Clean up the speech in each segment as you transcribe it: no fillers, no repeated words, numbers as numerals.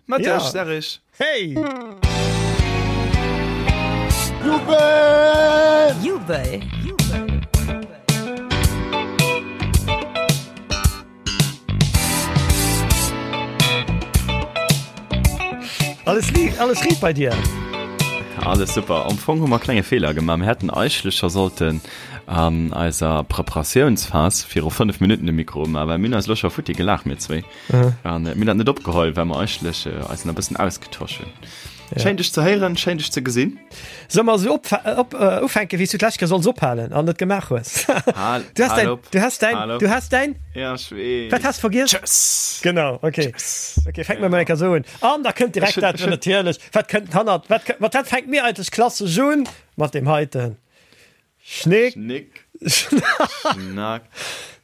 Mëtteg, Serge. Hey! Jubel! Jubel! Alles liicht, alles riit bei dir? Alles super. Am Fong hu mer klenge Feeler gemaach. Mir hätten eigentlech scho sollten an eiser Preparatiounsphas viru 5 Minutten de Mikro umaachen, well mir hunn eis elo scho futti gelaach, mir zwéi. An mir hunn dat net opgeholl, well mer eigentlech eis nach e bëssen ausgetosch hunn. Schéin dech ze héieren, schéin dech ze gesinn. Solle mer esou op, op, ufänken, wéi s du d'lescht Kéier solls ophalen an net gemaach hues? Hal, Du has hal däin, op, du has däin, hal op. du has däin. Ja, ech weess. Wat has de vergiess? Tschëss. Genau, okay. Tschëss. Okay, fänke mer mol eng Kéier esou un. An da kënnt direkt Ech hunn, dat, ech hunn. natierlech, wat kënnt hannert, wat kënnt, mat wat fänke mir eigentlech klassesch un? Mat deem heiten. Schnick. Schnick. Schnack. Schnack.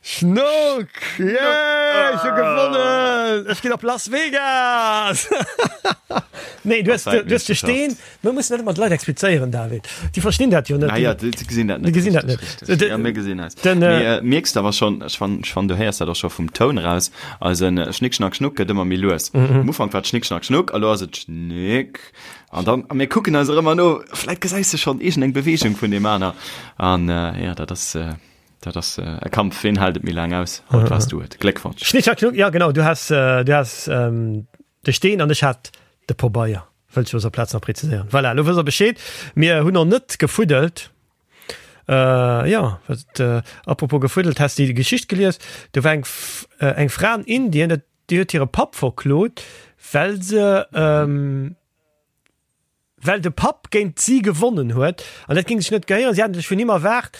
Schnuck. Yeah, ech hu gewonnen. Ech ginn op Las Vegas. Nee, du has, du has de Steen. Mir mussen dat ëmmer de Leit explizéieren, David. Déi verstinn dat jo net. Ah ja, déi gesinn dat net. Déi gesinn dat net. Richtig, richtig. Ja, mir gesinn eis. Den, Mee äh, mierks de awer schonn, ech fann, ech fann, du héiers dat och scho vum Toun raus, eisen Schnick, Schnack, Schnuck gëtt ëmmer méi lues. Am Ufank war et Schnick, Schnack, Schnuck, a lo ass et Schnick. An dann, a mir kucken eis och ëmmer no, vläit gesäis de schonn iergendeng Beweegung vun deem aner. An jo, dat ass, dat ass e Kampf, ween hält et méi laang aus? Haut waars du et. Gléckwonsch! Schnick, schnack, schnuck, ja genau, du has, du has de Steen an ech hat de Pobeier, wëllt ech op dëser Plaz nach präziséieren. Voilà, elo wësst der Bescheed. Mir hunn och net gefuddelt. Jo, wat, apropos gefuddelt, has de déi Geschicht gelies? Do war eng, eng Fra an Indien, dat Déi huet hire Papp verklot, well se well de Papp géint si gewonnen huet an dat géing sech net gehéieren. Si hätten sech vun him erwaart,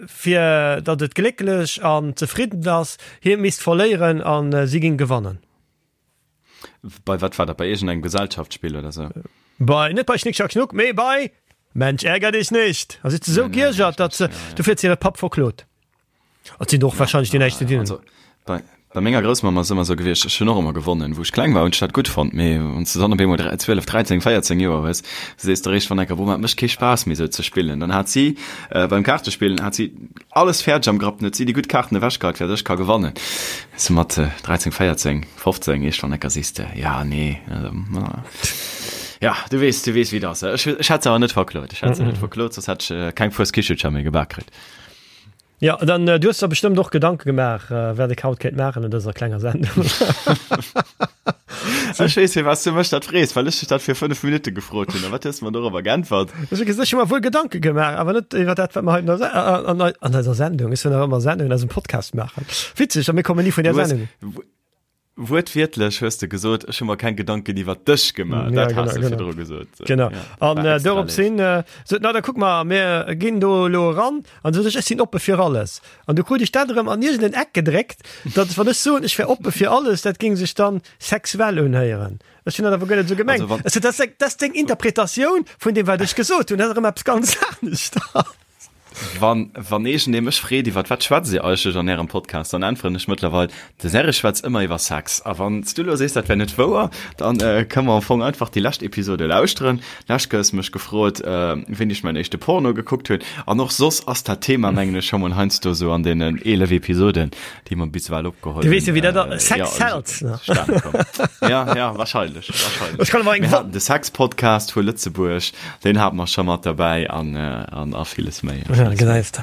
fir datt et glécklech an zefridden ass, hie misst verléieren a si géing gewannen. Bei wat war dat? Bei iergendengem Gesellschaftsspill oder sou? Bei, net bei Schnick Schnack Schnuck, mee bei Mensch ärger dich nicht! A si huet se esou giergert, datt se, dofir huet se hire Papp verklot. Et sinn och wahrscheinlech déi näischt ze dinn. Also, bei, bei menger Groussmamm ass ëmmer sou gewiescht, ech hunn och ëmmer gewonnen. Wou ech kleng war, hunn ech dat gutt fonnt, mee wann s de dann op eemol 12, 13, 14 Joer hues, sees de eréischt wann enker, Boah, et mécht kee Spaass méi sou ze spillen. Dann hat si beim Kaartespillen hat si alles fäerdeg am Grapp, dann huet si déi gutt Kaarten ewechgeheit, fir datt ech ka gewannen. Sou mat 13, 14, 15, eescht wann enker sees de, ja, nee, also, ja, du weess, du weess wéi et ass. Ech, ech hätt se awer net verklot, ech hätt se net verklot, soss hätt ech keng Fueskichelcher méi gebak kritt. Jo, dann du hues der bestëmmt och Gedanke gemaach, wat ech haut kéint maachen an dëser klenger Sendung. Ech weess, firwat s du mech dat frees, well ech dech dat vir 5 Minutte gefrot hunn. A wat hues de mer dorobber geäntwert? Ech hu gesot, ech hu mer wuel Gedanke gemaach, awer net iwwer dat, wat mer haut an der an eiser Sendung, ech soen nach ëmmer Sendung, an eisem Podcast maachen. Witzeg, a mir kommen ni vun där Sendung. Wuertwiertlech hues de gesot, ech hu mer keng Gedanken iwwer dech gemaach. Ja, Dat genau, has de genau. virdru gesot. Genau. Ja, An war äh, extra dorops léif. hin äh, sot, na da kuck mal, mir ginn do elo eran. An sot ech, ech sinn oppe fir alles. An du krut ech dat erëm an iergend en Eck gedréckt, datt wann ech soen, ech wär oppe fir alles, dat géing sech dann sexuell unhéieren. Ech hunn dat awer guer net esou gemengt. Also wann- Ech sot, dat ass, dat ass deng Interpretatioun vun deem, wat ech gesot hunn. Dat ass erëm eppes ganz aneschters. Wann, wann iergendee mech freet, iwwer wat schwätzt Dir eigentlech an Ärem Podcast, dann äntweren ech mëttlerweil, De Serge schwätzt ëmmer iwwer Sex. A wann s du elo sees, dat wär net wouer, dann kënne mer am Fong einfach déi lescht Episode lauschteren. Lescht Kéier hues de mech gefrot, wéini ech mäin éischte Porno gekuckt hunn. An och soss ass dat Thema, mengen ech, scho mol heiansdo sou an deenen 11 Episoden, déi mer bis ewell opgeholl Du weess jo, wéi dat hunn, ass. Sex sells, ne? zustane komm. Ja, ja, wahrscheinlech, wahrscheinlech. Ech kann awer eng Mir haten de Sex-Podcast vu Lëtzebuerg. Deen hate mer scho mat derbäi an, an a villes méi. A Ja, villes méi. gesäis de.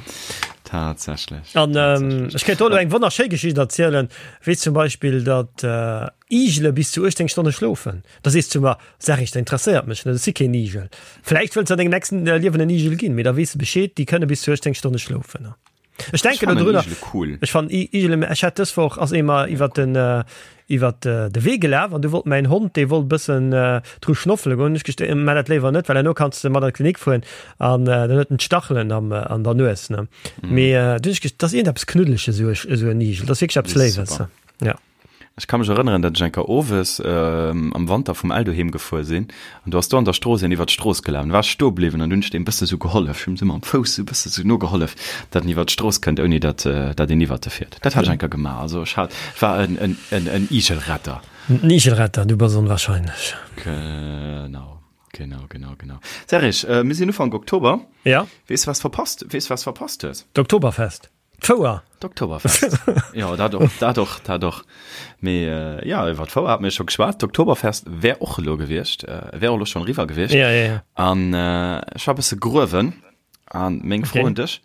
Tatsächlech. An ähm, Tatsächlech. ech kéint do elo eng wonnerschéi Geschicht erzielen, wéi zum Beispill, datt äh, Igele bis zu 18 Stonne schlofen. Da sees du mer, Sag ich, dat interesséiert mech net, ech si keen Igel. Vläicht wëlls de an dengem nächsten äh, Liewen en Igel ginn, mee da weess de Bescheed, déi kënne bis zu 18 Stonne schlofen. Ech denken fannen dodrunner. Igele cool. Ech fannen Igele, ech hat dës Woch ass ee mer iwwer den iwwer de Wee gelaf an du wollt mäin Hond, dee wollt bëssen dru schnoffele goen. Ech gest maa dat léiwer net, well herno kanns de mat an d'Klinik fueren an dann huet en d'Stachelen am an der Nues ne. Mee du hunn ech gest, dat ass iergendeppes Knuddeleges esou esou en Igel, dat ass wierklech eppes Léiwes. Ja. Ech ka mech erënneren, datt ech eng Kéier owes am Wanter vum Eldo heem gefuer sinn an do ass do an der Strooss een iwwer d'Strooss gelaf. An du war ech stoe bliwwen an du hunn ech deem bësse sou gehollef. Ech hunn him sou mam Fouss sou bësse sou nogehollef, datt en iwwer d'Strooss kënnt, ouni datt datt een iwwert e fiert. Dat hat ech eng Kéier gemaach. Also ech hat, war en en en en Igelretter. En Igelretter, du bass onwahrscheinlech. Genau, genau, genau, genau. Serge, mir sinn Ufank Oktober. Ja. Weess was verpasst, weess was verpasst hues? D'Oktoberfest. D'Fouer. D'Oktoberfest. Jo, dat och, dat och, dat och. Mee jo, iwwer d'Fouer hate mir scho geschwat. D'Oktoberfest wär och elo gewiescht, wär och elo schonn eriwwer gewiescht. Ja, ja, ja. An ech war e bësse gruewen. An meng Fro un dech,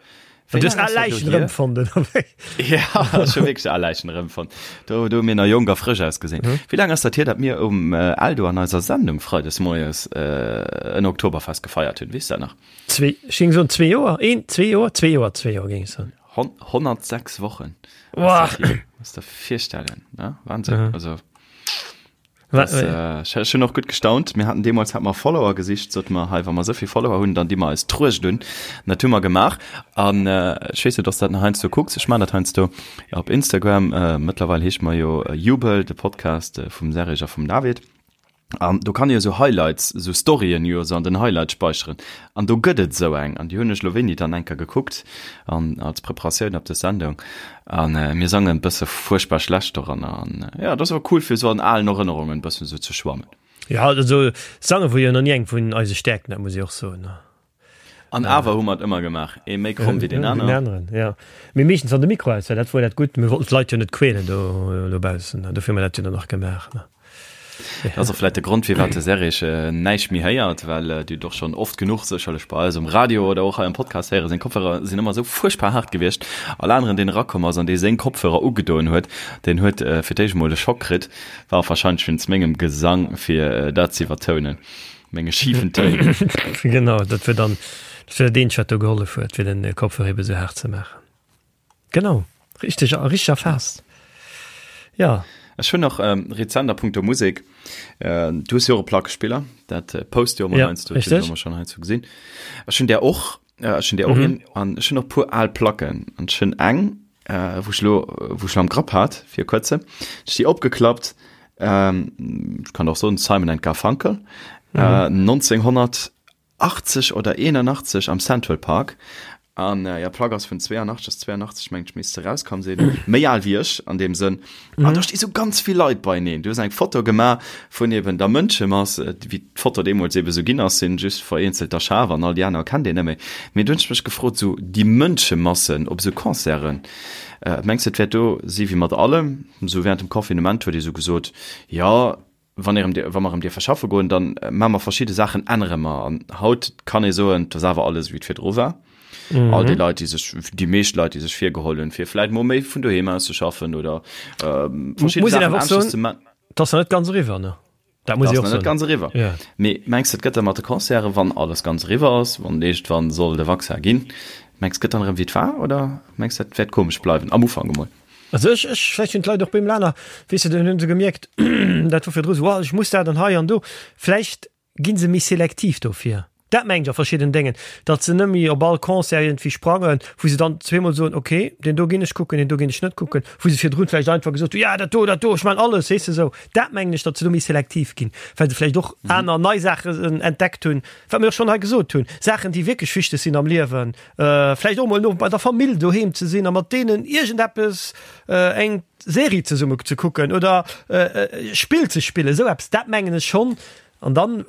Wéi laang ass dat elo hier? Erëmfonnt, oder wéi? Ja, ech hu wierklech al Läichen erëmfonnt. Do, do hu mir nach jonk a frësch ausgesinn. Wéi laang ass dat hier, datt mir um Eldo an eiser Sendung freides moies en Oktoberfest gefeiert hunn? Weess du dat nach? Zwee, ech géing soen zwee Joer, een, zwee Joer, zwee Joer, zwee Joer géing ech soen. 106 Wochen. Wow. Muss der virstellen, ne? Wahnsinn. Mhm. Also, das, äh, ech hunn och gutt gestaunt. Mir haten deemools hat mer Follower gesicht, sot mer hei, wa mer souvill Follower hunn, dann di mer eis d'Truecht un. Dat hu mer gemaach. An äh, ech weess net, ob s dat nach heiansdo kucks. Ech man dat heiansdo op Instagram. Äh, mëttlerweil heescht mer jo Jubel, de Podcast äh, vum Serge a vum David. An do kann ee jo sou Highlights, sou Storyen jo sou an den Highlights speicheren. An do gëtt et sou eng, an déi hunn ech lo wéini dann eng Kéier gekuckt an als Preparatioun op dës Sendung. An mir sangen e bësse fuerchtbar schlecht doranner. An jo, dat ass awer cool fir sou an alen Erënnerungen e bëssen sou ze schwammen. Jo, also sange wor jo nach ni eng vun eise Stäerkten, dat muss ech och soen. An awer hu mer et ëmmer gemaach, ee méi kromm wéi deen aneren. Deen aneren, ja. Mee meeschtens wann de Mikro aus war, dat wor dat Gutt. Mir wollten d'Leit jo net quälen do dobaussen, dofir hu mer dat jo dann och gemaach, ne. Dat ass och vläicht de Grond, firwat de Serge näischt méi héiert, well Dir hutt och schonn oft genuch sécherlech bei eis um Radio oder och hei am Podcast héieren, seng Kopfhörer sinn ëmmer esou fuerchtbar haart gewiescht. All aneren, deen erakomm ass an dee seng Kopfhörer ugedoen huet, deen huet fir d'éischt emol e Schock kritt, war och warscheinlech wéinst mengem Gesang, fir dat ze iwwertounen. Menge schiefen Téin. Genau, dat wär dann dat wär dat eenzegt, wat do gehollef huet, fir den Kopfhörer ebe sou haart ze maachen. Genau, richteg, richteg erfaasst. Ja. Ech hunn nach ähm, rezent a punkto Musek, äh, du hues jo och e Plackespiller, dat äh, post jo ëmmer ja, heiansdo, dat hunn ech ëmmer schonn heiansdo gesinn. Ech hunn där och, äh, ech hunn där och mhm. een, an ech hunn och puer al Placken an ech hunn eng, äh, wou ech lo, wou ech lo am Grapp hat fir kuerze, ech déi opgeklappt, ähm, ich kann och soen Simon and Garfunkel, mhm. äh, 1980 oder 81 am Central Park. An äh, ja Plack ass vun 82 ass 82 mengt ech misst se rauskomm sinn. Méi al wéi ech an deem Sënn. Mhm. An da sti sou ganz vill Leit beineen. Du hues eng Foto gemaach vun eben der Mënschemass, äh, wéi d'Foto deemools eben sou ginn ass, sinn just vereenzelter schaarf an all déi aner kennt een net méi. Mee du hunn ech mech gefrot, sou déi Mënschemassen op sou Concerten, äh, mengs du et wäert do si wéi mat allem? Sou während dem Confinement huet ee sou gesot, jo, wann ee rëm, wa mer erëm dierfe schaffe goen, dann maache mer verschidde Saachen, ännere mer. An haut kann ee soen, et ass awer alles wéi et virdru war. Mhm. All déi Leit, déi sech, déi meescht Leit, déi sech virgeholl hunn, fir vläit mol méi vun doheem aus ze schaffen oder ähm, verschidde Saachen aneschters ze man. Dat ass nach net ganz eriwwer, ne? Dat muss ich och net ganz eriwwer. Ja. Mee mengs du, et gëtt da mat de Concerte, wann alles ganz eriwwer ass, wann iergendwann soll de Vaccin ginn, mengs gëtt dann erëm wéi et war oder mengs dat wäert komesch bleiwen am Ufank emol? Also ech, ech, vläicht hunn d'Leit och beim Lana, weess de, dann hunn se gemierkt, dat wor virdru sou, oh ech muss dat an hei an do, vläicht ginn se méi selektiv dofir. Dat mengen ech a verschidden Déngen, datt se net méi op all Concert iergendwéi sprangen, wou se dann zweemol soen, ok, deen do ginn ech kucken, deen do ginn ech net kucken, wou se virdrun vläicht einfach gesot hunn, ja dat do, dat do, ech man alles, weess de sou. Dat mengen ech, datt se do méi selektiv ginn, well se vläicht och aner nei Saachen entdeckt hunn, wat mir och schonn hei gesot hunn, Saachen, déi wierklech wichteg sinn am Liewen, vläicht och mol no bei der Famill doheem ze sinn a mat deenen iergendeppes, eng Serie zesumme ze kucken oder e Spill ze spillen, esou eppes, dat mengen ech schonn. An dann,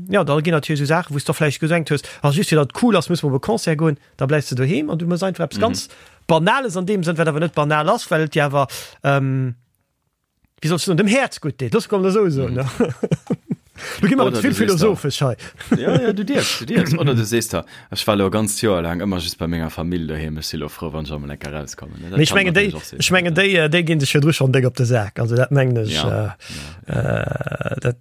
jo, da ginn natierlech esou Saachen, wou s de och vläicht gedenkt hues, ah just fir datt et cool ass, musse mer op e Concert goen, da bleifs de doheem an du méchs einfach eppes ganz Banales an deem Sënn, wat awer net banal ass, well et dir awer, wéi soll ech soen, dem Häerz gutt deet. Looss mer emol esou soen. Lo gi mer ze vill philosophesch hei. Jo, jo, du dierfs, du dierfs. Oder du sees der, ech war elo e ganzt Joer laang ëmmer just bei menger Famill doheem, ech si lo frou, wann ech emol eng Kéier erauskommen. Dat Mee ech mengen, déi, ech mengen, déi, déi ginn sech virdru schonn déck op de Sak. Also dat mengen ech. Ja, ja. Dat,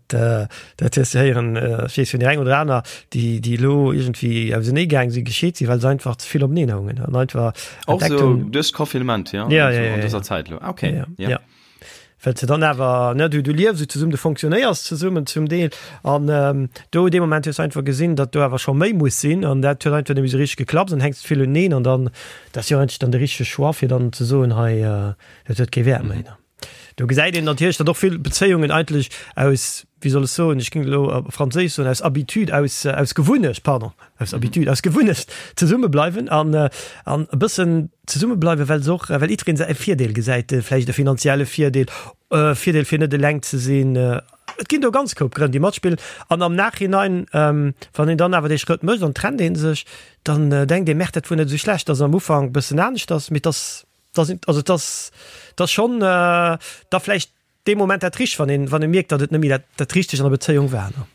dat hues de héieren, ech weess vun där eng oder aner, déi, déi elo iergendwéi auseneegaang sinn, gescheet sinn, well se einfach ze vill openeen houngen an einfach Och entdeckt sou hunn. duerch d'Confinement, ja? Ja, ja, ja, An dëser Zäit elo. Okay, ja. Ja. Well se dann awer, ne, du, du liefs esou zesummen, du fonctionnéiers zesummen zum Deel an ähm, do dee Moment hues du einfach gesinn, datt do awer scho méi muss sinn an dat huet einfach net méi esou richteg geklappt, dann hänks de vill uneen an dann, dat ass jo eigentlech dann de richtege Choix fir dann ze soen, hei, äh, dat huet kee Wäert méi, ne. Do gesäit een natierlech, datt och vill Bezéiungen eigentlech aus, wéi soll ech soen, ech géing elo op Franséisch soen, aus Habitude, aus, aus Gewunnecht, pardon, aus Habitude, aus Gewunnecht zesumme bleiwen an, an e bëssen zesumme bleiwen, well se och, well jiddereen säi Virdeel gesäit, vläicht e finanzielle Virdeel, e Virdeel fir net eleng ze sinn. Et ginn do ganz Koup Grënn, déi matspillen. An am Nachhinein, wann een dann awer dee Schrëtt mécht an trennt ee sech, dann denkt ee, Merde, dat wor net esou schlecht, dass et am Ufank e bëssen anescht ass. Mee et ass, also et ass, et ass schonn da vläicht dee Moment dat Richtegt, wann een, wann ee mierkt, datt et net méi dat, dat Richtegt an der Bezéiung war, ne?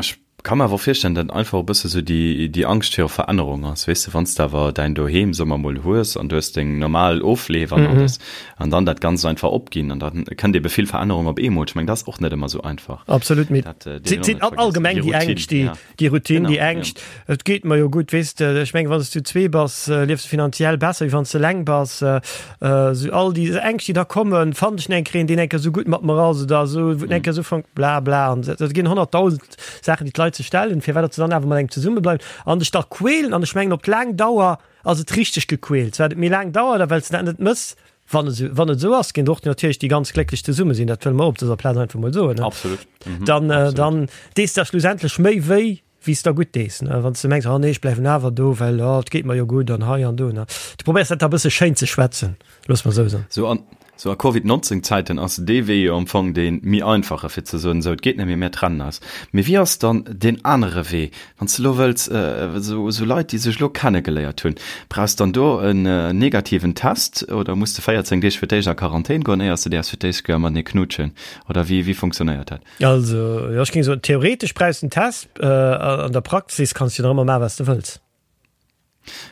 Ech ka mer awer och virstellen, datt einfach e bësse sou déi, déi Angscht viru Verännerung ass, weess de, wann s de awer däin Doheem, soe mer mol, hues an du hues deng normal Ofleef an alles an dann dat Ganzt einfach opginn an da kënnt ebe vill Verännerung op eemol. Ech mengen, dat ass och net ëmmer sou einfach. Absolut, mee Dat dierf een och net vergiessen. Allgemeng déi Ängscht, déi, Déi Routine, déi Ängscht, et geet mer jo gutt, weess de. Ech mengen, wann s du zwee bass, liefs de finanziell besser, wéi wann s de eleng bass. Esou all déi Ängscht, déi da kommen, Fannen ech eng Kéier een, deen eng Kéier esou gutt mat mer ass oder esou, wou eng Kéier esou fänkt, bla bla. An et ginn 100.000 Saachen, déi d'Leit sech stellen, firwat datt se dann awer mat engem zesummebleiwen an dech da quälen. An ech mengen, op laang Dauer ass et richteg gequält. Wat et méi laang dauert a well s de dat net mëss, Wann et wann et esou ass, ginn och natierlech déi ganz glécklech zesumme sinn, dat wëlle mer op dëser Plaz einfach mol soen, ne? Absolut. Mhm. Dann, äh, Absolut. dann dees der schlussendlech méi wéi, wéi s der gutt dees, ne? Wann s de mengs, oh nee, ech bleiwen awer do, well oh, et geet mer jo gutt an hei an do, ne? Du probéiers dat da e bësse schéin ze schwätzen, looss mer esou soen. Sou an, sou a Covid 19 Zäiten ass dee Wee jo am Fong dee méi einfache fir ze soen, esou et geet net méi, mir trennen eis. Mee wéi ass dann deen anere Wee, Wann s de elo wëlls, esou Leit, déi sech elo kennegeléiert hunn, brauchs dann do en negativen Test oder muss de 14 Deeg fir d'éischt a Quarantän goen, éiers de däerfs fir d'éischt Kéier matenee knutschen? Oder wéi, wéi funktionéiert dat? Also, jo, ech géing soen, theoretesch brauchs de en Test, an der Praxis kanns de jo nach ëmmer maachen, wat s de wëlls.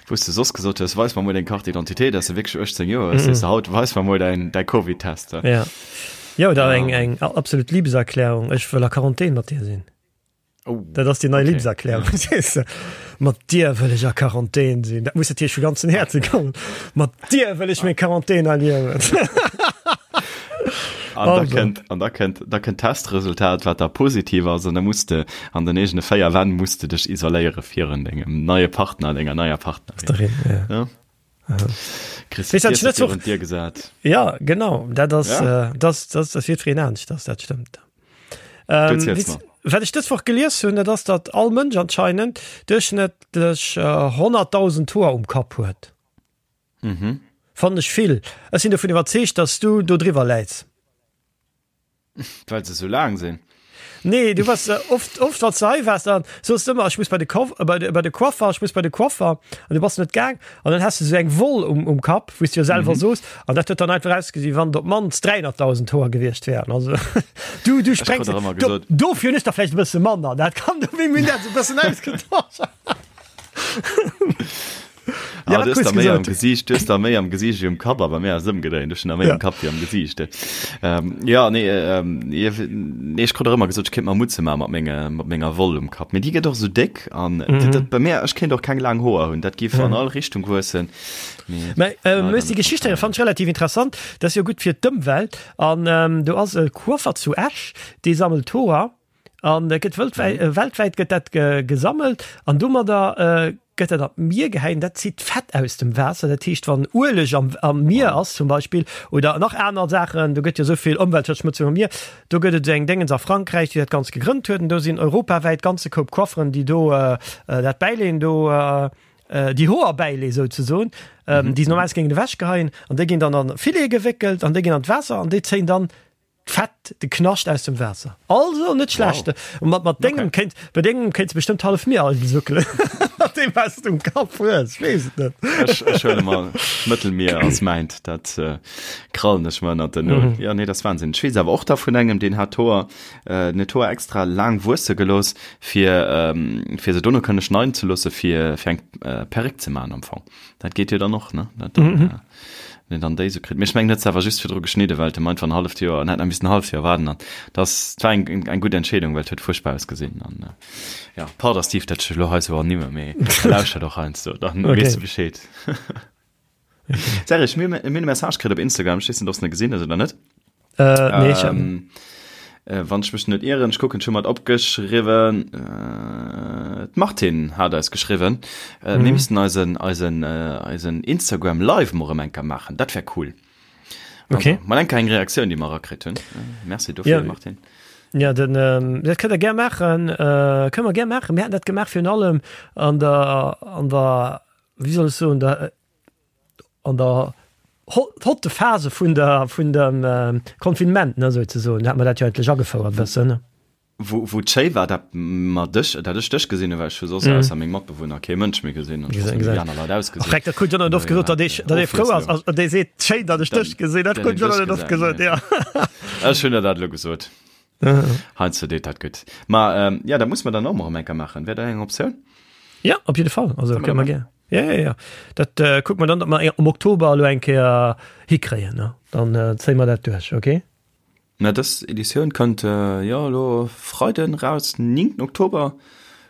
Wou s de soss gesot hues, weis mer mol deng Carte d'identité, dass de wierklech 18 Joer hues, sees de haut, weis mer mol däin, däi Covid-Test. Ja. Jo, oder eng, eng absolut Liebeserklärung, ech wëll a Quarantän mat dir sinn. Oh, dat ass déi nei okay. Liebeserklärung. Ja. Mat dir wëll ech a Quarantän sinn. Dat muss natierlech vu ganzen Häerze kommen. Mat dir wëll ech meng Quarantän erliewen. An da kënnt, an da kënnt, da kënnt Testresultat, wat da positiv ass, an da muss de an den eegene véier Wänn muss de dech isoléiere virun dengem neie Partner, denger neier Partnerin. Ja. Ja. Kriss de Weess, d'Tierse virun d'Dier gesat. Ja, genau. Dat ass, Ja. äh, das, das, das wird fir een anescht, dass dat stëmmt. Du Ähm, erziels weess, mer. wat ech dës Woch gelies hunn, dat ass, datt all Mënsch anscheinend duerchschnëttlech äh, 100.000 Hoer um Kapp huet. Mhm. Fannen ech vill. Ech sinn dovun iwwerzeegt, datt s du do driwwer läits. Well se sou laang sinn. Nee, du warst äh, oft, oft wann du hei warst, dann soos du ëmmer, ech muss bei de Koff, äh, bei de, bei de Coiffer, ech muss bei de Coiffer. An du bass net gaang. An dann has du sou eng Woll um, um Kapp, wou s du jo selwer mhm. soos. An dat huet dann einfach ausgesinn, wann op mannst 300.000 Hoer gewiescht wären. Also, du, du sprengst. Du, dofir hunn ech der vläicht e bësse manner. Dat kann du, wéi mir dat sou bëssen ausgetosch. Ah, Ja, du wat hues hues der méi am gesot? Gesiicht, du hues der méi am Gesiicht wéi um Kapp, a bei mir ass et ëmgedréint, ech hunn der méi Ja. um Kapp wéi am Gesiicht. Ähm, ja, nee, ähm, nee, ech krut och ëmmer gesot, ech kéint mer Mutze maache mat menge, mat menger Woll um Kapp. Mee déi gëtt och esou déck an mhm. dat, bei mir, ech kéint och keng laang Hoer hunn, dat giff mhm. an all Richtung wuessen. Mee, Mä, äh, leider déi net Geschicht hei fand ich relativ interessant. Dat ass jo gutt fir d'Ëmwelt. An ähm, do ass e Coiffer zu Esch, dee sammelt Hoer. An dat gëtt wëltwäit, äh, weltwäit gëtt dat ge, gesammelt an domadder äh, gëtt dat an d'Mier gehäit. Dat zitt d'Fett aus dem Waasser. Dat heescht, wann Ueleg am, am Mier ass zum Beispill oder nach aner Saachen, do gëtt jo esou vill Ëmweltverschmutzung am Mier, do gëtt et eng Déngens a Frankräich, déi dat Ganzt gegrënnt huet. An do sinn europawäit ganze Koup Coifferen, déi do äh, äh, dat bäileen, do äh, déi Hoer bäilee souzesoen, ähm, déi se normalerweis géingen ewechgeheien an déi ginn dann an Filete gewéckelt an déi ginn an d'Waasser an déi zéien dann Fett, de Knascht aus dem Waasser. Also net schlecht. Wow. Mat, mat dengem Okay. kéint, bei dengem kéints bestëmmt hallef Mier alt suckelen. Mat deem was du um Kapp hues, ech weess et net. Ech, ech huele mal Mëttelmier als mäint, dat äh, krallen ech mer ënnert den Nol. Mhm. Ja, nee, das Wahnsinn. Ech weess awer och da vun engem, deen hat d'Hoer, äh, net d'Hoer extra laang wuesse gelooss, fir, ähm, fir se dono kënne schneiden ze loosse, fir, fir eng äh, Perréck ze maachen am Fong. Dat geet jo dann och, ne? Dat dann, Mhm. äh, Wenn een dann déi sou kritt. Mee ech mengen, huet se awer just virdru geschnidden, well et em einfach en halleft Joer, en hätt nach missen en halleft Joer waarden an dat war eng, eng gutt Entscheedung, well et huet fuerchtbar ausgesinn an ja, pardon Steve, dat ech elo hei sou ernimme, mee lauschtert och heiansdo, dann Okay. weess de Bescheed. Serge, mir mir hunn e Message kritt op Instagram, ech weess net, ob s de en gesinn hues oder net. Äh, nee, ich hab, Ähm, äh, wann ech mech net ieren, ech kucken, ech hu mat opgeschriwwen, äh, d'Martine hat eis geschriwwen, äh, mir mhm. missten eisen, eisen, äh, eisen Instagram Live mol erëm eng Kéier maachen, dat wär cool. Also, Okay. mal eng Kéier eng Reaktioun, déi mer erakritt hunn. Äh, merci dofir, Ja. Martine. Ja, den, ähm, dat kënnt der gär maachen, äh, kënne mer gär maachen. Mir haten dat gemaach virun allem an der, an der, wéi soll ech soen, der, an der. hotte Phase vun der, vun dem Confinement, ne, souzesoen. Da hat mer dat jo eigentlech agefouert e bëssen, ne. Wou, wou et schéi war, dat mer dech, dat ech dech gesinn hunn, well ech hu soss ausser meng Matbewunner kee Mënsch méi gesinn an ech wosst net, wéi déi aner Leit ausgesinn. Ach, dat krut John net oft gesot, datt ee, datt ee frou ass, ass, datt ee seet, schéin, datt ech dech gesinn. Dat krut John net oft gesot, jo. Ech hunn der dat elo gesot. Heiansdo deet dat gutt. Ma jo, dat musse mer dann och mol erëm eng Kéier maachen. Wär dat eng Optioun? Jo, op jidde Fall. Also, kënne mer gär. Ja, ja, ja. Dat äh, kucke mer dann, datt mer am Oktober elo eng Kéier hikréien. Ne? Dann äh, zéie mer dat duerch, okay? Na, dës Editioun kënnt äh, jo elo Freiden raus, 9. Oktober.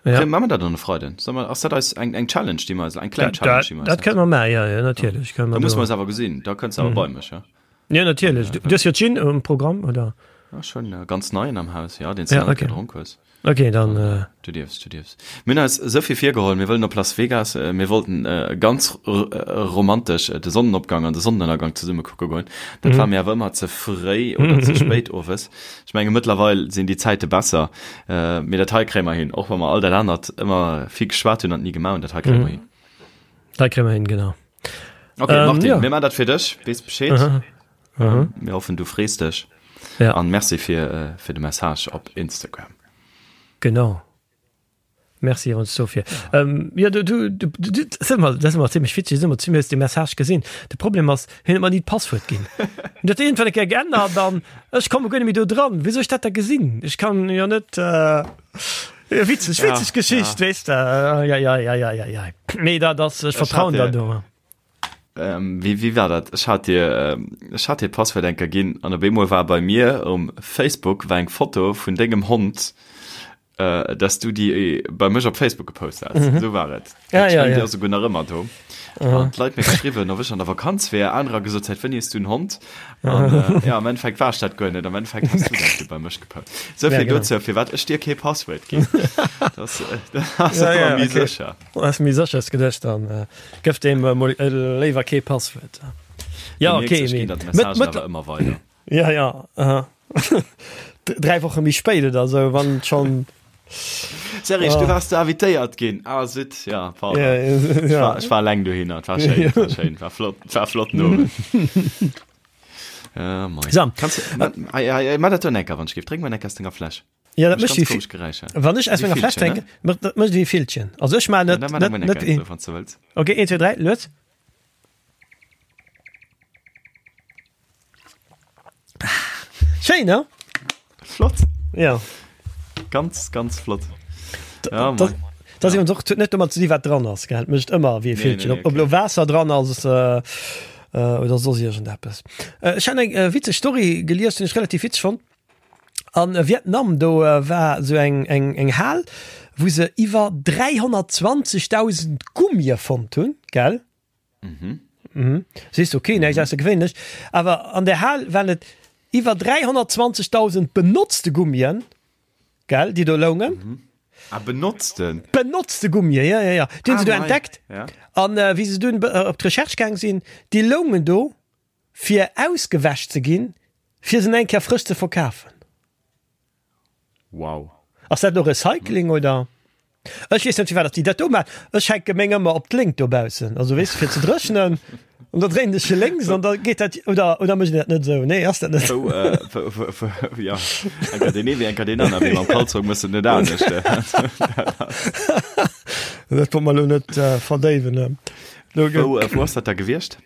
Ja. Maache mer dat dann e Freiden? Solle mer, ass dat eis eng, eng Challenge, déi mer eis, eng kleng Challenge, déi mer eis Dat kënne mer maachen, ja, ja, natierlech. Ja. Da musse mer eis awer gesinn, da kënns de awer mhm. bei mech, ja? Ja, natierlech. Du, du hues jo Gin um Programm, oder? Ja, schon äh, ganz neien am Haus, ja, den du ja, okay. gedronk hues. Okay, dann. Äh du dierfs, du dierfs. Mir hunn eis esou vill virgeholl, mir wëllen op Las Vegas, äh, mir wollten äh, ganz äh, romantesch äh, de Sonnenopgang an de Sonnenënnergang zesumme kucke goen. Dat mhm. war mir awer ëmmer ze fréi oder ze spéit owes. Ech menge mëttlerweil sinn déi Zäite besser. Äh, mee dat hei kréie mer hin, och wa mer all dat anert ëmmer vill geschwat hunn an ni gemaach hunn, dat hei kréie mer mhm. hin. Dat kréie mer hin, genau. Okay, ähm, Martin, ja. mir man dat fir dech, wees Bescheed. Aha. Aha. Mir hoffen du frees dech. Ja. An merci fir, äh, fir de Message op Instagram. Genau. Merci ons dofir. Ja. Ähm, ja, du, du, du, du, du, das ist immer, das ist immer ziemlich witzig, das ist immer ziemlich de Message gesinn. De Problem ass, hien huet mer nie d'Passwuert ginn. Dat irgendwann eng Kéier geännert an ech komme guer net méi do dran. Wéi soll ech dat da gesinn? Ech kann jo net äh, ja, witzeg, witzeg ja, Geschicht, ja. weess de. Ja, ja, ja, ja, ja, ja. Nee, dat ass, ech vertrauen da do. Ähm, wéi, wéi war dat? Ech hat dir, ähm, ech hat dir Passwuert enker ginn an op eemol war bei mir um Facebook war eng Foto vun dengem Hond, äh, dass du déi bei mech op Facebook gepost has. Mhm. Esou war et. Ja, ja, ja. Déi ass souguer nach ëmmer do. An d'Leit mir geschriwwen, ob ech an der Vakanz wär, anerer gesot, säit wéini hues du en Hond? An, äh, ja, am Endeffekt war ech dat guer net. Am Endeffekt has du dat du bei mech gepost. Esou Ja, vill genau. dozou, firwat ech dir kee Passwuert ginn. Das, äh, das ass Ja, ëmmer ja, méi okay. sécher. Ass méi sécher s geduecht, dann äh, gëff deem äh, mol äh, léiwer kee Passwuert. Ja, Du okay, mierks, ech mee ginn der mëtt, d'Messagen mëtt, awer ëmmer weider. ja, ja, aha. Dräi Woche méi spéit oder sou, wann schonn. Serge, du Ah. waars du invitéiert ginn. Ah, zut, ja, pardon. Ja, Ech ja. war, ech war eleng dohinner. Et war schéin, et war schéin, war flott, war flotten Owend. Äh, moi. So. Kannst du, ma, ei, ei, ei, ma dat do enker, wann ech géif. Drénk mol enker aus denger Fläsch. Ja, dat Mécht mécht ganz wéi komesch Geräischer. Wann ech aus Wéi menger Fläsch Villchen, ne? drénken, mécht dat mécht wéi Villchen. Also ech maachen Ja, net da mar net mol net enker, wéi. so, wann s du wëlls. Okay, 1, 2, 3, lues. Schéin, ne? Flott. Ja. Ganz, ganz flott. Ja, Dat moi. dat ass iwwerens och, huet net domat ze di wat dran ass, gell? Et mécht ëmmer wéi e Nee, Villchen. nee, Ob ob okay. lo Waasser dran ass äh, äh, oder soss iergendeppes. Äh, ech hat eng äh, witzeg Story gelies, déi ech relativ witzeg fonnt. An Vietnam do war esou eng eng eng Hal, wou se iwwer 320.000 Gummie fonnt hunn, gell? Mhm. Mhm. Sees du, okay, näischt aussergewéinlech. Awer an där Hal waren et iwwer 320.000 benotzte Gummien, gell, déi do loungen. Mhm. Ah, benotzten? Benotzte Gummien, ja, ja, ja. Déi hunn Ah, se do mei. entdeckt. Ja. An wéi se dunn op d'Recherche gaang sinn, déi loungen do fir ausgewäsch ze ginn, fir se nach eng Kéier frësch ze verkafen. Wow. Ass dat elo Recycling oder? Ech weess net firwat datt déi dat do maachen. Ech hänke meng ëmmer op d'Léngt dobaussen, also weess de fir ze dréchnen an da dréinen ech se lénks an da geet dat oder oder mécht een dat net esou? Nee ass dat net? Wou, äh, wou, wou, wou, ja, enker deen ee wéi enker deen aner, mee mam Kalzong méchs de et net anescht. Dat wollt mer elo net verdéiwen. Wou, wou ass dat da gewiescht?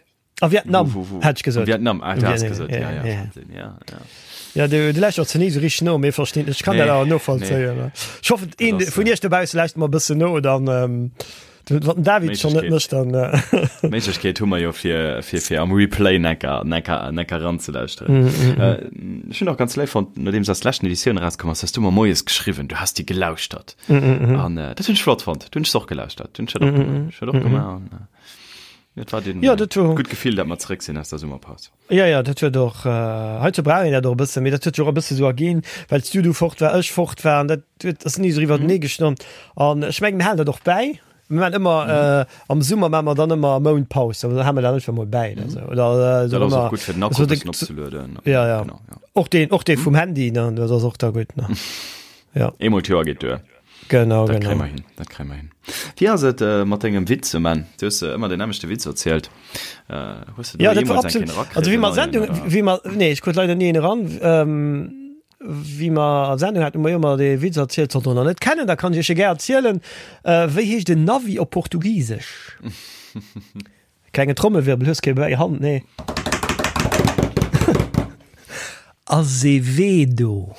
A Vietnam, Wo, wo, wo? hätt ech gesot. Vietnam, ah, du hast gesot, ja, ja, ja, ja, ja. Wahnsinn, ja, ja. Ja, du, du läuschters ze ni so richtig no, mee verstinn, ech kann Nee, dat awer novollzéien. nee. Ech hoffen, een Dat ass, vun äh, iech dobausse lauschtert mer e bëssen no, dann, ähm, wann den David schon net Méiglechkeet. mécht, dann, äh, Méiglechkeet hu mer jo fir, fir, fir am Replay necker, necker, necker ranzelauschteren. Mm, mm, mm. Äh, ech hunn och ganz léif fonnt, nodeems eis leschten Editioun erauskomm ass, has du mer moies geschriwwen, du has déi gelauschtert. Mm, mm, mm. An äh, dat hunn ech flott fonnt, du hunn ech och gelauschtert, du hunn ech dat och Mm, mm, gemaach, ech dat och mm, mm. gemaach an, äh, Et war den, Ja, dat war- gutt Gefill, dat mer zeréck sinn aus der Summerpaus. Ja, ja, dat huet och, äh, heizou brauch een dat och e bëssen, mee dat huet sech och e bësse sou erginn, well s du du fort war, ech fort war, an dat huet, ass ni esou iwwertenee gestommt. An ech mengen, mir halen dat och bäi. Mir maachen ëmmer, äh, am Summer maache mer dann ëmmer e Mount Paus, da hale mer dat einfach mol bäi oder sou. Oder, äh, Dat ass och ëmmer, gutt fir den Akku so e de, bëssen opzelueden. ja, ja. Genau, ja. Och deen, och dee vum Handy, ne, dat ass och da gutt, ne. Ja. Eemol d'Joer geet duer. Genau, dat genau. Hin, dat kréie mer hin. Wéi ass et äh, mat dengem Witz, Man? Du hues äh, ëmmer den nämmlechte Witz erzielt. Äh, hues du do ja, dat war jeemools eng absolut. Kéier erakritt, Also wéi en mer neien, Sendung, oder? wéi mer, nee, ech krut leider ni een eran. Ähm, wéi mer Sendung haten, hu mer jo ëmmer dee Witz erzielt, sollt der nach net kennen, da kann ech iech e gär erzielen. Äh, wéi heescht en Navi op Portugisesch? Klengen Trommelwirbel, hues kee bäi Hand, nee. Azevedo.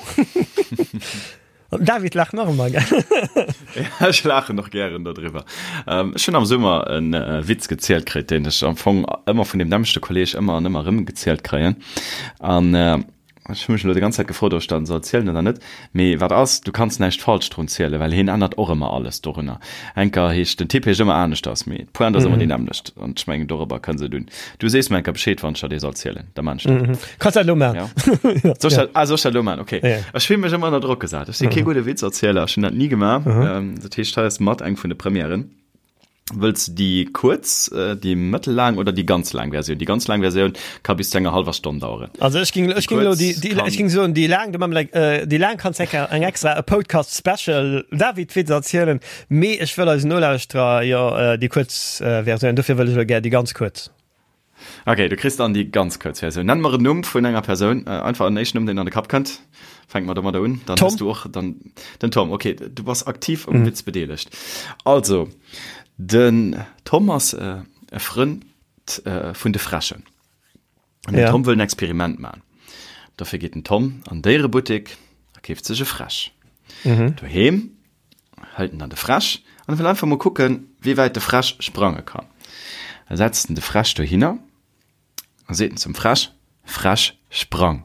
An den David laacht nach ëmmer, gell? Ja, ech laachen och gären dodriwwer. Ech hunn am Summer e Witz gezielt kritt, deen ech am Fong ëmmer vun deem nämmlechte Kolleeg ëmmer an ëmmer erëm gezielt kréien. An Ech hu mech elo déi ganz Zäit gefrot, ob ech dat soll zielen oder net. Mee wat ass, du kanns näischt falsch drun zielen, well hien ännert och ëmmer alles dorunner. Enker heescht, den Typ heescht ëmmer aneschters, mee d'Pointe ass ëmmer déi nämmlecht. An ech mengen, dorobber kënns et un. Du sees mer enker Bescheed, wann ech der dee soll zielen, da maan ech dat. Kanns dat elo maan. Ja. Soll ech dat, ah, soll ech dat elo maan? Okay. Ja. Ech fill mech ëmmer ënner Drock gesat. Ech si kee gudde Witzerzieler, ech hunn dat ni gemaach. Dat heescht, hei ass mat eng vun de Premièren. Wëlls de déi kuerz, déi mëttellaang oder déi ganz laang Versioun? Déi ganz laang Versioun ka bis zu enger hallwer Stonn daueren. Also ech ging, ech ging elo déi, déi, ech ging soen déi laang, du mam like, déi laang kanns eng eng extra e Podcast Special David Witz erzielen, mee ech wëll eisen Nolauschterer jo déi kuerz Versioun, dofir wëll ech elo gär déi ganz kuerz. Ok, du kriss dann déi ganz kuerz Versioun. Nenn mer en Numm vun enger Persoun, einfach en éischten Numm, deen an de Kapp kënnt. Fänke mer domadder un. Dann Tom. hues du och dann den Tom. Ok, du bass aktiv um Witz bedeelegt. Also, den Tom ass e Frënd vun de Fräschen. An den Ja. Tom wëll en Experiment man. Dofir geet den Tom an Déierebuttek a keeft sech e Fräsch. Doheem hëlt en dann de Fräsch an wëll einfach mol kucken, wéi wäit de Fräsch sprange kann. Da setzt en de Fräsch dohinner a seet en zum Fräsch, Fräsch, sprang!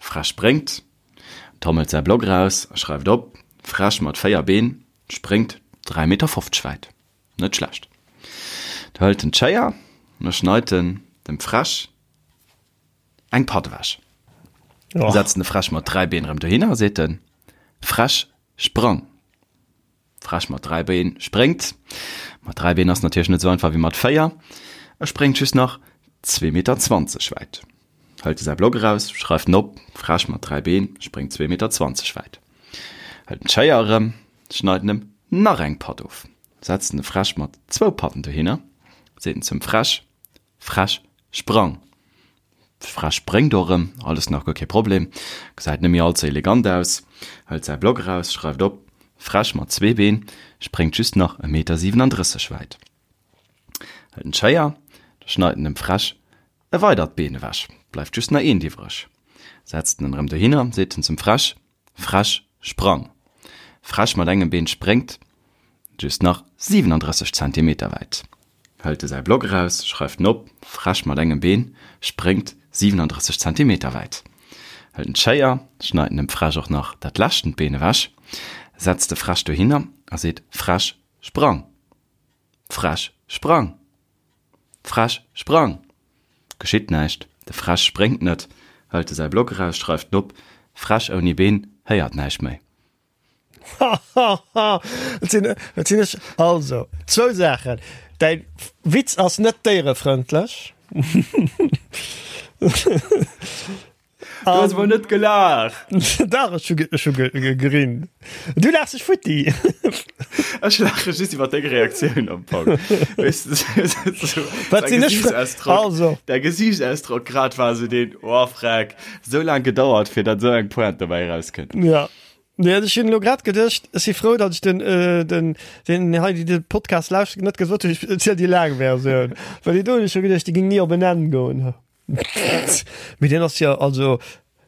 Fräsch spréngt, Tom hëlt säi Block eraus a schreift op, Fräsch mat 4 Been spréngt 3 Meter 50 wäit. Net schlecht. Da hëlt en d'Schéier an da schneit en dem Fräsch eng Patt ewech. Oh. Setzt en de Fräsch mat 3 Been erëm dohinner a seet en, Fräsch, sprang! Fräsch mat 3 Been spréngt. Mat 3 Been ass natierlech net esou einfach wéi mat 4. E spréngt just nach zwee Meter 20 wäit. Hëlt e säi Block eraus, schreift en op, Fräsch mat 3 Been spréngt zwee Meter 20 wäit. Hëlt en d'Schéier erëm, schneit en em nach eng Patt of. Setzt en de Fräsch mat zwou Patten dohinner, seet en zum Fräsch, Fräsch, sprang! Fräsch spréngt och erëm, alles nach guer kee Problem, gesäit net méi all ze elegant aus, hëlt säi Block eraus, schreift op, Fräsch mat zwee Been, spréngt just nach e Meter 37 wäit. Hëlt en d'Schéier, da schneit en dem Fräsch e weidert Been ewech, bleift just nach eent iwwreg. Setzt en en erëm dohinner, seet en zum Fräsch, Fräsch, sprang! Fräsch mat engem Been spréngt just nach 37 Zentimeter wäit. Hëlt e säi Block eraus, schreift en op, Fräsch mat engem Been spréngt 37 Zentimeter wäit. Hëlt en d'Schéier, schneit en dem Fräsch och nach dat leschtent Been ewech, setzt de Fräsch dohinner a seet, Fräsch, sprang! Fräsch, sprang! Fräsch, sprang! Geschitt näischt, de Fräsch spréngt net, hëlt e säi Block eraus, schreift en op, Fräsch ouni Been héiert näischt méi. Hahaha, et sinn, et sinn ech. Also, zwou Saachen, Däi Witz ass net déierefrëndlech. Du hues mol net gelaacht. Dach, ech hu ech hu gerinn. Du laachs dech futti. Ech laache just iwwer deng Reaktioun am Fong. Weess de, sou Wat däi sinn ech fir Gesiichtsausdrock, also. däi Gesiichtsausdrock grad war sou deen, oh freck, sou laang gedauert fir datt sou eng Pointe dobäi erauskënnt. Ja. Nee, ech hunn elo grad geduecht, ech si frou, datt ech den, den, den hei, déi de Podcast lauschteren, net gesot hunn, ech erziel déi laang Versioun. Well déi do hunn ech scho geduecht, déi géing ni op en Enn goen. Mee deen ass jo, also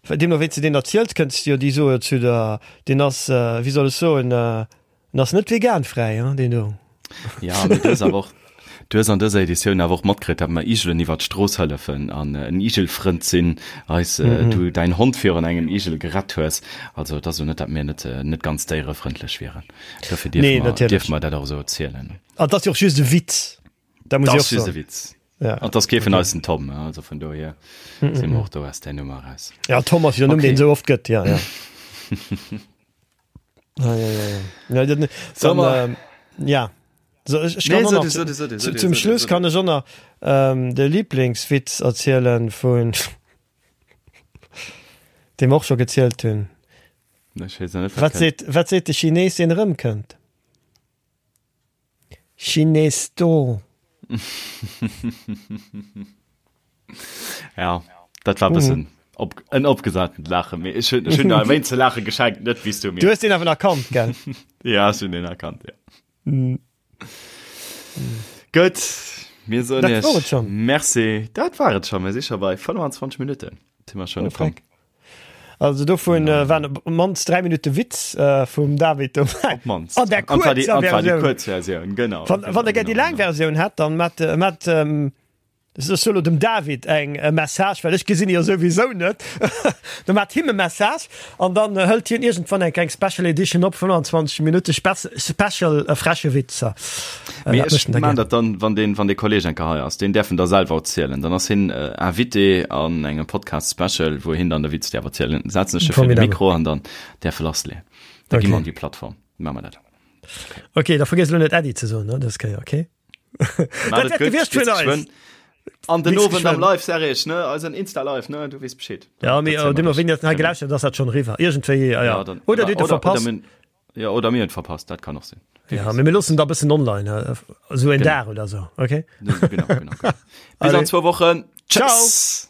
deemno wéi s de deen erziels, kënns de jo déi soe zu der, deen ass, wéi soll ech soen, en ass net veganfräi, hein, deen do. Ja, mee du hues awer och, du hues an dëser Editioun awer och matkritt, datt mer Igelen iwwer d'Strooss hëllefen an en Igelfrënd sinn, eis, du däin Hond virun engem Igel gerett hues. Also et ass elo net, datt mir net, net ganz déierefrëndlech wieren. Dofir dierfe Nee, mer, natierlech. dierfe mer dat och esou erzielen. An et ass jo och just e Witz. Da muss ich och Witz. Ja. An das kee vun eis den Tom, also vun dohier mm -mm. si mer och do aus der Nummer raus. Ja Tom ass jo Numm, okay. den sou oft gëtt, ja, ja. ja, ja, ja, ja. Ja, dann, dann, äh, ja. So, ich, ich kann nee, so, so, so, so, so, zum Schluss kann ich auch noch ähm, de Lieblingswitz erzielen vun dem och schon gezielt hunn. Ech weess net, wat seet, wat seet de Chines, deen erëmkënnt? Chines do. Ja, dat war bëssen mm. op, en opgesatent Laachen. Mee ech hunn, ech hunn der e wéinst ze laache geschenkt, net wéi s du mir. Du hues deen awer erkannt, gell? Ja, ech hunn deen erkannt, ja. Mm. Gutt, mir soen Dat war et schon. Merci. Dat war et schon. Mir si scho bei 25 Minutten. Si mer schon oh, Frank. Also dovun äh, waren op mannst 3 Minute Witz äh, vum David dobäi. Op mannst. An der kurzer Versioun. Kurz Version, genau. Wann, wann der déi laang Versioun hat, dann mat, äh, mat ähm, Ech soe lo dem David eng e Message, well ech gesinn e jo souwisou net. Da maacht him e Message an dann hëlt hien iergendwann eng kleng Special Edition op, 25 Minutte Special freche Witzer. Mee ech maan dat dann, wann deen, wann dee Kolleg eng Kéier hei ass, deen däerf en da selwer erzielen. Dann ass hien Invité an engem Podcast Special, wou hien dann de Witz däerf erzielen. Setzen ech e vir de Mikro an dann däerf e lassleeën. Da gi mer an déi Plattform. Maache mer dat. Ok, da vergiess elo net Äddi ze soen, ne, dës Kéier, ok? Dat wäert gewiescht vun eis. An den Owend am Live, Serge, ne? Eisen Insta-Live, ne? Du weess Bescheed. Ja, mee äh, deemno wéini dat hei gelauschtert ass dat schon eriwwer. Iergendwéi, ja, ja. dann, Oder dir hutt e verpasst. Oder, ja, oder mir hunn verpasst, dat kann och sinn. Ja, mee mir loossen da bëssen online, äh, esou en Dag oder sou, okay? Genau, genau, genau. Bis an zwou Wochen. Ciao. Tschüss.